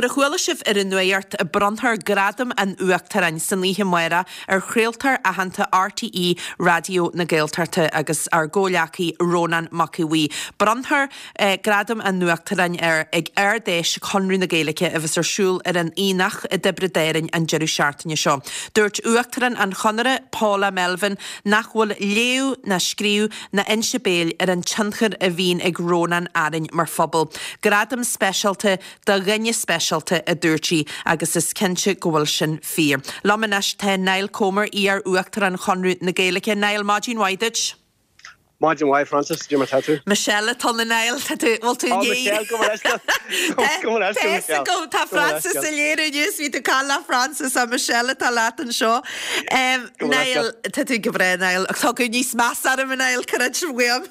mar a chuala sibh ar an nuacht, bronnfar Gradam an Uachtaráin san oíche amárach ar chraoltóir aitheanta RTÉ Raidió na Gaeltachta agus ár gcomhghleacaí Rónán Mac Aodha Bhuí. Bronnfar Gradam an Uachtaráin air ag Ard-Fheis Chonradh na Gaeilge a bheas ar siúl ar an Aonach i dTiobraid Árann an deireadh seachtaine seo. Dúirt Uachtarán an Chonartha, Paula Melvin, nach bhfuil léamh ná scríobh ná inse béil ar an tionchar a bhíonn ag Rónán orainn mar phobal. Gradam speisialta do dhuine speisialta, a dúirt sí, agus is cinnte go bhfuil sin fíor. Liom anois tá Niall Comer, iar-Uachtarán Chonradh na Gaeilge. Niall, maidin mhaith duit. Maidin mhaith, Frances, cad é mar tá tú? Michelle atá ann, a Niall, tá tú, bhfuil tú Ó, Michelle, gabh mo leithscéal. Gabh mo leithscéal, Michelle. Tá tá Frances ag léiriú inniu, bhí tú ag caint le Frances, ach Michelle atá leat anseo. Niall, tá tú go breá, Niall. Tá tú níos measa orm, a Niall, creid uaim.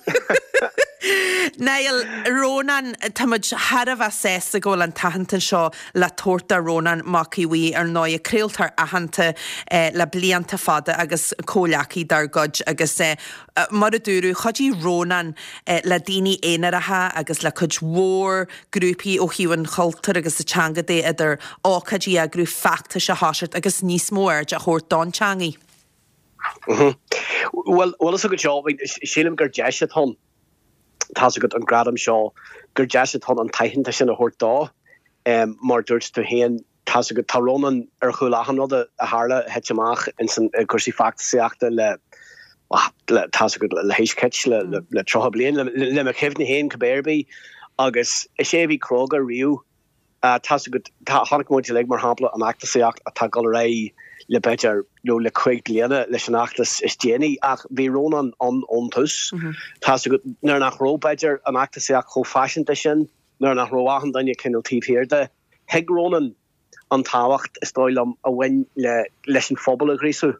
Niall, Rónán, tá muid thar a bheith sásta go bhfuil an t-aitheantas seo le tabhairt do Rónán Mac Aodha Bhuí, ar ndóigh, craoltóir aitheanta le blianta fada agus comhghleacaí dár gcuid agus mar a dúradh, chuidigh Rónán le daoine aonaracha agus le cuid mhór grúpaí ó thaobh an chultúir agus na teanga de, idir ócáidí a eagrú, feachtais a thoiseacht agus níos mó airde a thabhairt don teangaidh. Bhuel, bhfuil fhios agat seo, sílim gur deis atá ann, tá's agat, an gradam seo, gur deis atá ann an t-aitheantas sin a thabhairt dó. Mar dúirt tú féin, tá's agat, tá Rónán ar chúl achan rud a tharla, a thit amach ins an, i gcúrsaí feachtasaíochta le, le, tá's agat, le haois chit, le, le, le 30 bliain, le, le mo chuimhne féin cibé ar bith. Agus is é a bhí cróga riamh. Tá's agat, tá, chonaic muid uilig, mar shampla, an fheachtasaíocht atá ag dul ar aghaidh le b'fhéidir, nó le cuig bliana leis an fheachtas is déanaí, ach bhí Rónán ann ón tús. Tá's agat, nuair nach raibh, b'fhéidir, an fheachtasaíocht chomh faiseanta sin, nuair nach raibh achan duine cineál taobh thiar de, thuig Rónán an tábhacht, is dóigh liom, a bhain le, leis an phobal a ghríosú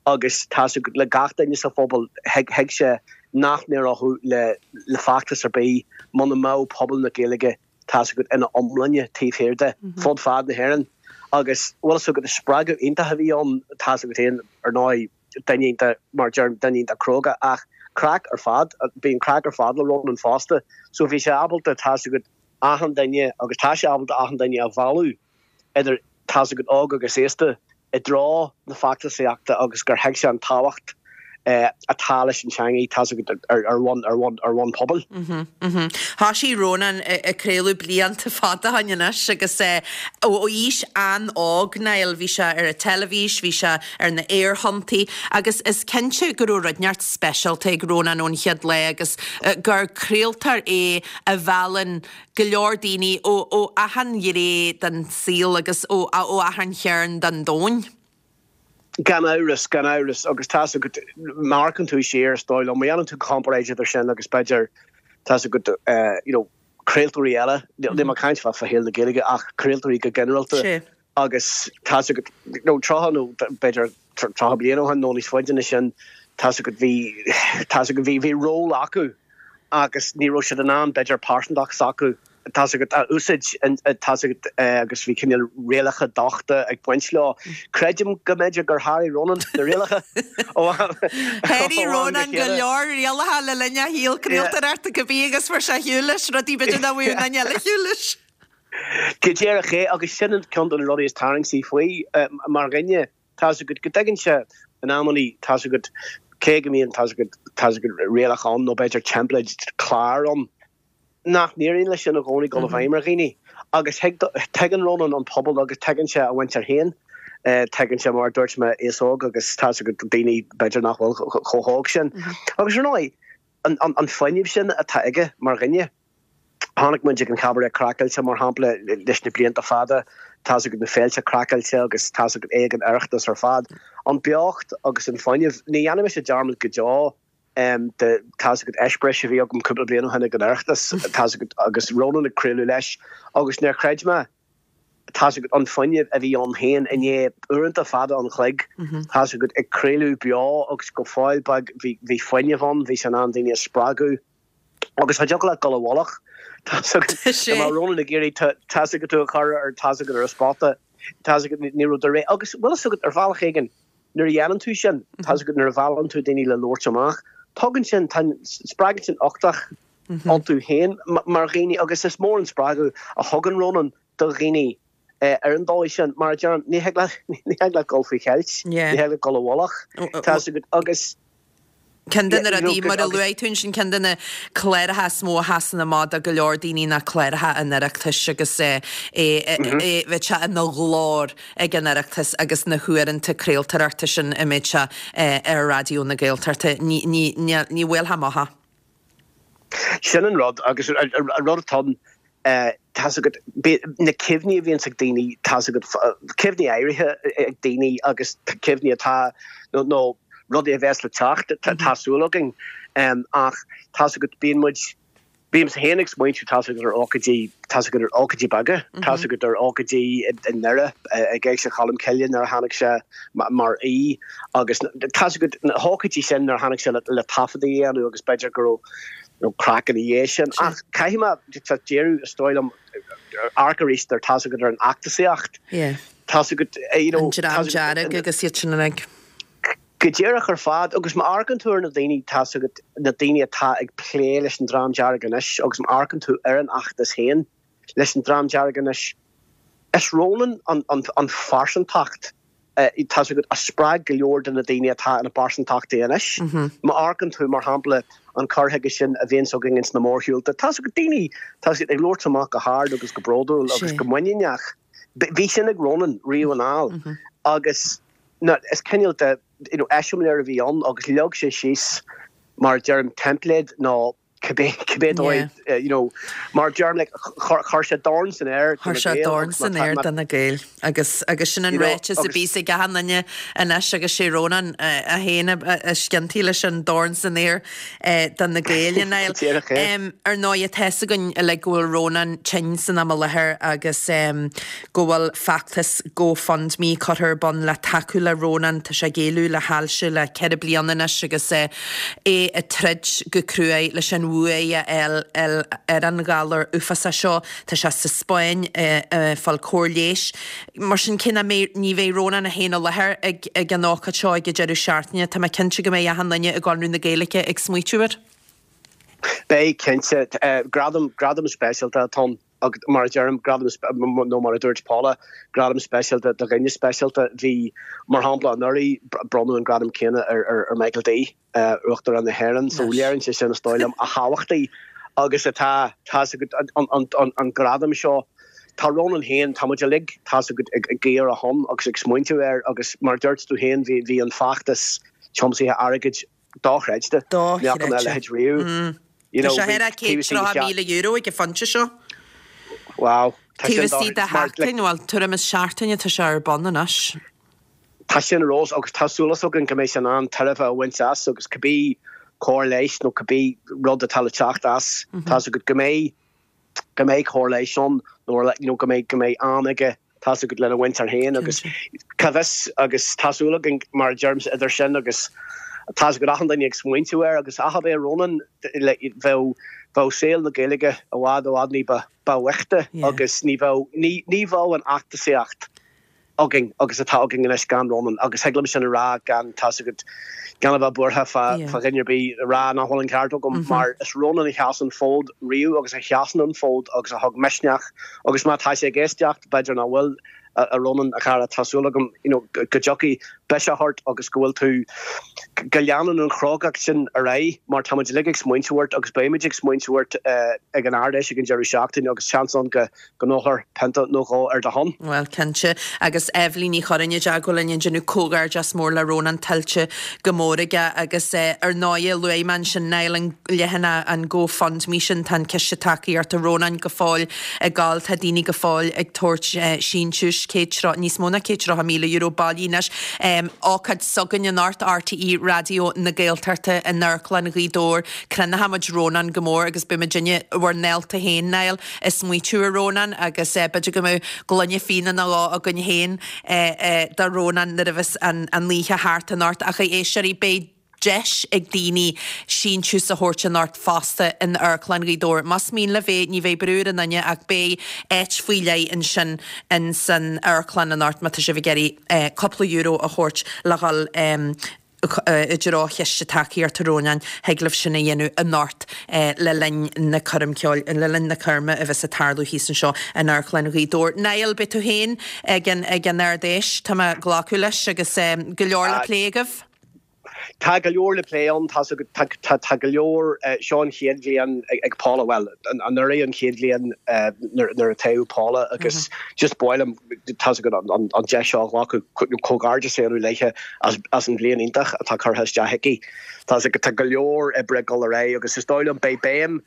agus tá's agat, le gach duine sa phobal, thuig, thuig sé nach n-éireodh le, le feachtas ar bith muna mbeadh pobal na Gaeilge, tá's agat, ina iomláine taobh thiar de, fud fad na hÉireann. Agus, bhfuil fhios agat, is spreagadh iontach a bhí ann, tá's agat féin, ar ndóigh, duine iontach, mar a deirim, duine iontach cróga, ach craic ar fad, bíonn craic ar fad le Rónán fosta. So bhí sé ábalta, tá's agat, achan duine, agus tá sé ábalta achan duine a mhealladh, idir, tá's agat, óg agus aosta, i dtreo na feachtasaíochta agus gur thuig sé an tábhacht atá leis an teangaidh, tá's agat, ar bhonn, ar bhonn, ar bhonn pobail. Thoisigh Rónán ag craoladh blianta fada ó shin anois agus ó aois an-óg, Niall, bhí sé ar an teilifís, bhí sé ar na aerthonntaí agus is cinnte go raibh rud inteacht speisialta ag Rónán ón chéad lá agus gur craoltóir é a mheallann go leor daoine ó achan ghné den saol agus ó achan chearn den domhan. Gan amhras, gan amhras, agus tá's agat, má amharcann tú siar, is dóigh liom, má dhéanann tú comparáid idir sin agus b'fhéidir, tá's agat, you know, craoltóirí eile, níl mé ag caint fá shaol na Gaeilge ach craoltóirí go ginearálta, Agus tá's agat, nó 30 nó b'fhéidir 30 bliain ó shin nó níos faide ná sin, tá's agat, bhí, tá's agat, bhí, bhí ról acu agus ní raibh siad in ann b'fhéidir pearsantacht s'acu, tá's agat, a úsáid, tá's agat, agus bhí cineál rialacha dochta ag baint leo. Creidim go mb'fhéidir gur sháraigh Rónán na rialacha ó am go Sháraigh Rónán go leor rialacha le linn a shaol craoltóireachta cibé agus fuair sé ar shiúl leis rudaí b'fhéidir nach bhfuair aon duine eile ar shiúl leis. Go díreach é, agus sin ceann de na rudaí is tarraingtí faoi mar dhuine, tá's agat, go dtuigeann sé in amannaí, tá's agat, cé go mbíonn, tá's agat, tá's agat, rialacha ann nó b'fhéidir teimpléid clár ann, nach n-éiríonn leis sin i gcónaí dul i bhfeidhm ar dhaoine. Agus thuig, tuigeann Rónán an pobal agus tuigeann sé a mhuintir féin, tuigeann sé, mar a dúirt mé, aos óg agus tá's agat, daoine b'fhéidir nach bhfuil chomh hóg sin. Agus ar ndóigh, an fuinneamh sin atá aige mar dhuine, Chonaic muid ag an Chabaret Craiceáilte, mar shampla, leis na blianta fada, tá's agat na féilte craiceáilte agus tá's agat é ag an Oireachtas ar fad. An beocht agus an fuinneamh, ní dhéanfaidh mise dearmad go deo de, tá's agat, eispéireas a bhí agam cúpla bliain ó shin ag an Oireachtas, tá's agat, agus Rónán ag craoladh leis agus níor chreid mé, tá's agat, an fuinneamh a bhí ann féin i ndiaidh uaireanta fada an chloig, tá's agat, ag craoladh beo agus go fóill beag bhí fuinneamh ann, bhí sé in ann daoine a spreagadh. Agus cha dtiocfadh leat dul i bhfolach. Tá's agat, dá mbeadh Rónán ag iarraidh tá's agat tú a chur ar tá's agat ar an spota, tá's agat ní raibh do ré. Agus bhfuil fhios agat ar bhealach éigin nuair a dhéanann tú sin, tá's agat nuair a mheallann tú daoine le labhairt amach, tugann sin, tá, spreagann sin uchtach iontu féin mar dhaoine agus is mór an spreagadh a thugann Rónán do dhaoine. Ar an dóigh sin, mar a deirim, ní thig leat, ní thig leat dul faoi cheilt, ní thig leat dul i bhfolach, tá's agat, agus. Ceann de na rudaí, mar a luaigh tú ansin, ceann de na cláracha is mó a sheasann amach do go leor daoine ná cláracha an Oireachtais agus é, bheadh sé ina ghlór ag an Oireachtas agus na huaireanta craoltóireachta sin a mbeadh sé ar Raidió na Gaeltachta. Ní, ní, ní bhuailfeá amach é. Sin an rud agus an rud atá ann, tá's agat, na cuimhní a bhíonns ag daoine, tá's agat, cuimhní áirithe ag daoine agus cuimhní atá, nó rudaí a bheas le teacht, tá súil againn. Ach tá's agat, bíonn muid, bímse féin ag smaointiú, tá's agat, ar ócáidí, tá's agat, ar ócáidí beaga, tá's agat, ar ócáidí i nDoire, ag Éigse Cholm Cille nuair a tháinig sé mar aoi agus tá's agat, na hócáidí sin nuair a tháinig sé le taifeadtaí a dhéanamh agus b'fhéidir go raibh nó craic ina dhiaidh sin. Ach caithfidh mé díriú, is dóigh liom, amharc arís ar tá's agat ar an fheachtasaíocht. Tá's agat, you know. An Dream Dearg agus iad sin uilig. Go díreach ar fad. Agus má amharcann tú ar na daoine, tá's agat, na daoine atá ag plé leis an Dream Dearg anois agus má amharcann tú ar an fheachtas féin leis an Dream Dearg anois, is Rónán an phearsantacht tá's agat, a spreag go leor de na daoine atá ina bpearsantachtaí anois. Má amharcann tú, mar shampla, an cur chuige sin a bhíonns againn ins na mórshiúlta, tá's agat, daoine, tá's agat, ag labhairt amach go hard agus go bródúil agus go muiníneach. Bhí sin ag Rónán riamh anall agus na, is cineál de, you know, eiseamláir a bhí ann agus leag sé síos, mar a deirim, teimpléad nó cibé, cibé dóigh, you know, mar a deirim, like, chuir sé dorn san aer do na Gaeil. Chuir sé dorn san aer do na Gaeil agus, agus sin an ráiteas a bíos ag achan duine anois agus sé Rónán é féin a sciontaigh leis an dorn san aer do na Gaeil, a Niall. Ar ndóigh, tá fhios againn uilig go bhfuil Rónán tinn san am i láthair agus go bhfuil feachtas GoFundMe curtha ar bun le tacú le Rónán. Tá sé ag éalú le hailse le 4 bliana anois agus é ag troid go cruaidh leis an bhuaidh a fháil ar an ghalar uafásach seo. Tá sé sa Spáinn ag fáil cóir leighis. Mar sin, cé nach mbeidh, ní bheidh Rónán é féin i láthair ag ag an ócáid seo ag an deireadh seachtaine, tá mé cinnte go mbeidh achan duine i gConradh na Gaeilge ag smaoitiú air. Beidh, cinnte. Gradam, gradam speisialta atá ann. Agus mar a deirim, gradam, nó mar a dúirt Paula, gradam speisialta do dhuine speisialta. Bhí, mar shampla, anuraidh, bronnadh an gradam céanna ar Michael D, Uachtarán na hÉireann. So léiríonn sé sin, is dóigh liom, a thábhachtaí agus atá, tá's agat, an gradam seo. Tá Rónán féin, tá muid uilig, tá's agat, ag guí ar a shon agus ag smaointiú air agus mar a dúirt tú féin, bhí an feachtas tiomsaithe airgid dochreidte. Ní fhaca mé a leithéid riamh. You know, Tá sé ar €130,000 ag an phointe seo. Wow. Taobh istigh de sheachtain, bhuel, tuairim is seachtain atá sé ar bun anois. Tá sin ar fheabhas agus tá súil againn go mbeidh sé in ann tairbhe a bhaint as agus cibé cóir leighis nó cibé rud atá le teacht as, tá's agat go mbeidh go mbeidh cóir leighis ann nó you know go mbeidh go mbeidh am aige tá's agat lena mhuintir féin agus cá bhfios agus tá súil againn mar a deirimse idir sin agus tá's agat achan duine ag smaointiú air agus ach ab é Rónán bheadh bheadh saol na Gaeilge i bhfad i bhfad ní ba ba bhoichte agus ní bheadh ní ní bheadh an fheachtasaíocht againn agus atá againn anois gan Rónán agus thig liom sin a rá gan, tá's agat, gan a bheith buartha fá dhuine ar bith a rá nach bhfuil an ceart agam mar is Rónán a sheas an fód riamh agus a sheasann an fód agus a thug misneach agus má tá sé ag éisteacht, b'fhéidir nach bhfuil, a Rónán, a chara, tá súil agam you know go dtiocfaidh biseach ort agus go bhfuil tú, go leanann an chrógacht sin ar aghaidh mar tá muid uilig ag smaointiú ort agus beimid ag smaointiú ort ag an Ard-Fheis ag an deireadh seachtaine agus seans ann go go n-ólfar pionta nó dhó ar do shon. Bhuel, cinnte. Agus Eibhlín Ní Churráin i dteagmháil linn ag déanamh comhghairdeas mór le Rónán tuillte go mór aige agus ar ndóighe luaigh mé ansin Niall an leathanach an GoFundMe sin tá an ciste tacaíochta Rónáin go fóill ag gabháil tá daoine go fóill ag tabhairt síntiúis 130 níos mó ná €130,000 bailithe anois. Ócáid s'againn anocht RTÉ Raidió na Gaeltachta in Amharclann Ghaoth Dobhair. Crothóidh muid Rónán go mór agus beidh muidinne bhur ndálta féin Niall ag smaoitiú ar Rónán agus b'fhéidir go mbeadh gloine fíona nó dhó againn féin do Rónán nuair a bheas an oíche thart anocht. Ach a éisteoirí, beidh deis ag daoine síntiús a thabhairt anocht fosta in Amharclann Ghaoth Dobhair. Más mian libh é, ní bheidh brú ar aon duine ach beidh áit faoi leith ansin in san amharclann anocht má tá sibh ag iarraidh cúpla euro a thabhairt le dhul. I dtreo Chiste Tacaíochta Rónáin, thig libh sin a dhéanamh anocht le linn na coirm ceoil, le linn na coirme a bheas ag tarlú thíos anseo in Amharclann Ghaoth Dobhair. Niall, beidh tú féin ag an ag an Ard Fheis, tá mé ag glacadh leis, agus go leor le plé agaibh? Tá go leor le plé ann, tá tá tá go leor, seo an chéad bhliain ag Paula, bhuel, anuraidh an chéad bhliain nuair a toghadh Paula agus just ba mhaith liom, tá's agat, an deis seo a ghlacadh comhghairdeas a dhéanamh léithe as an bhliain iontach atá curtha isteach aici. Tá's agat, tá go leor oibre ag dul ar aghaidh agus is dóigh liom beidh béim,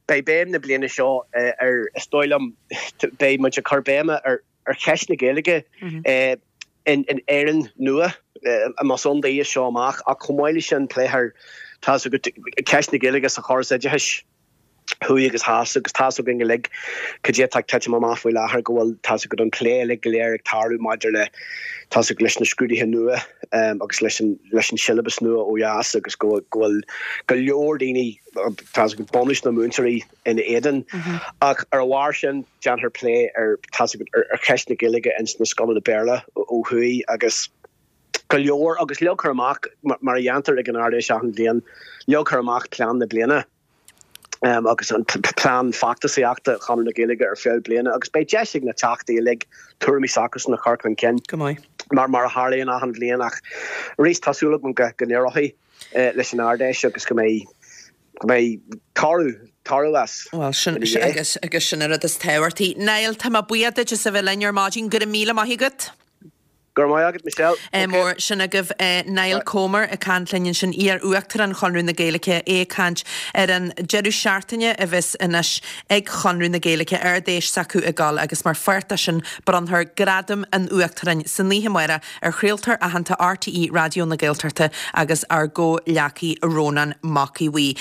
beidh béim na bliana seo ar, is dóigh liom, beidh muid ag cur béime ar ar cheist na Gaeilge in Éirinn nua, más ann di as seo amach, ach chomh maith leis sin pléifear, tá's agat, ceist na Gaeilge sa chóras oideachais. thuaidh agus theas agus tá's againn uilig cad é atá ag titim amach faoi láthair, go bhfuil, tá's agat, an plé uilig go léir ag tarlú maidir le, tá's agat, leis na scrúduithe nua agus leis an, leis an siollabas nua ó dheas agus go bhfuil go leor daoine, tá's agat, bunús na múinteoirí ina éadan. Ach ar a bharr sin, déanfar plé ar, tá's agat, ar cheist na Gaeilge ins na scoileanna Béarla ó thuaidh agus go leor agus leagfar amach, mar a dhéantar ag an Ard-Fheis achan bhliain, leagfar amach plean na bliana. agus an plean feachtasaíochta Chonradh na Gaeilge ar feadh bliana agus beidh deis ag na Teachtaí uilig tuairimí s'acusan a chur chun cinn Go maith. mar mar a tharlaíonn achan bhliain ach arís tá súil agam go go n-éireoidh leis an Ard-Fheis agus go mbeidh go mbeidh toradh toradh as Bhuel sin ina dhiaidh. agus agus sin an rud is tábhachtaí. Niall, tá mé buíoch duit as a bheith linn ar maidin. Go raibh míle maith agat. Go raibh maith agat, Michelle. Ádh mór. Sin agaibh Niall Comer ag caint linn ansin, iar-Uachtarán Chonradh na Gaeilge, é ag caint ar an deireadh seachtaine a bheas anois ag Conradh na Gaeilge, Ard-Fheis s'acu ag dul agus mar pháirt de sin bronnfar Gradam an Uachtaráin san oíche amárach ar chraoltóir aitheanta RTÉ Raidió na Gaeltachta agus ár gcomhghleacaí Rónán Mac Aodha Bhuí.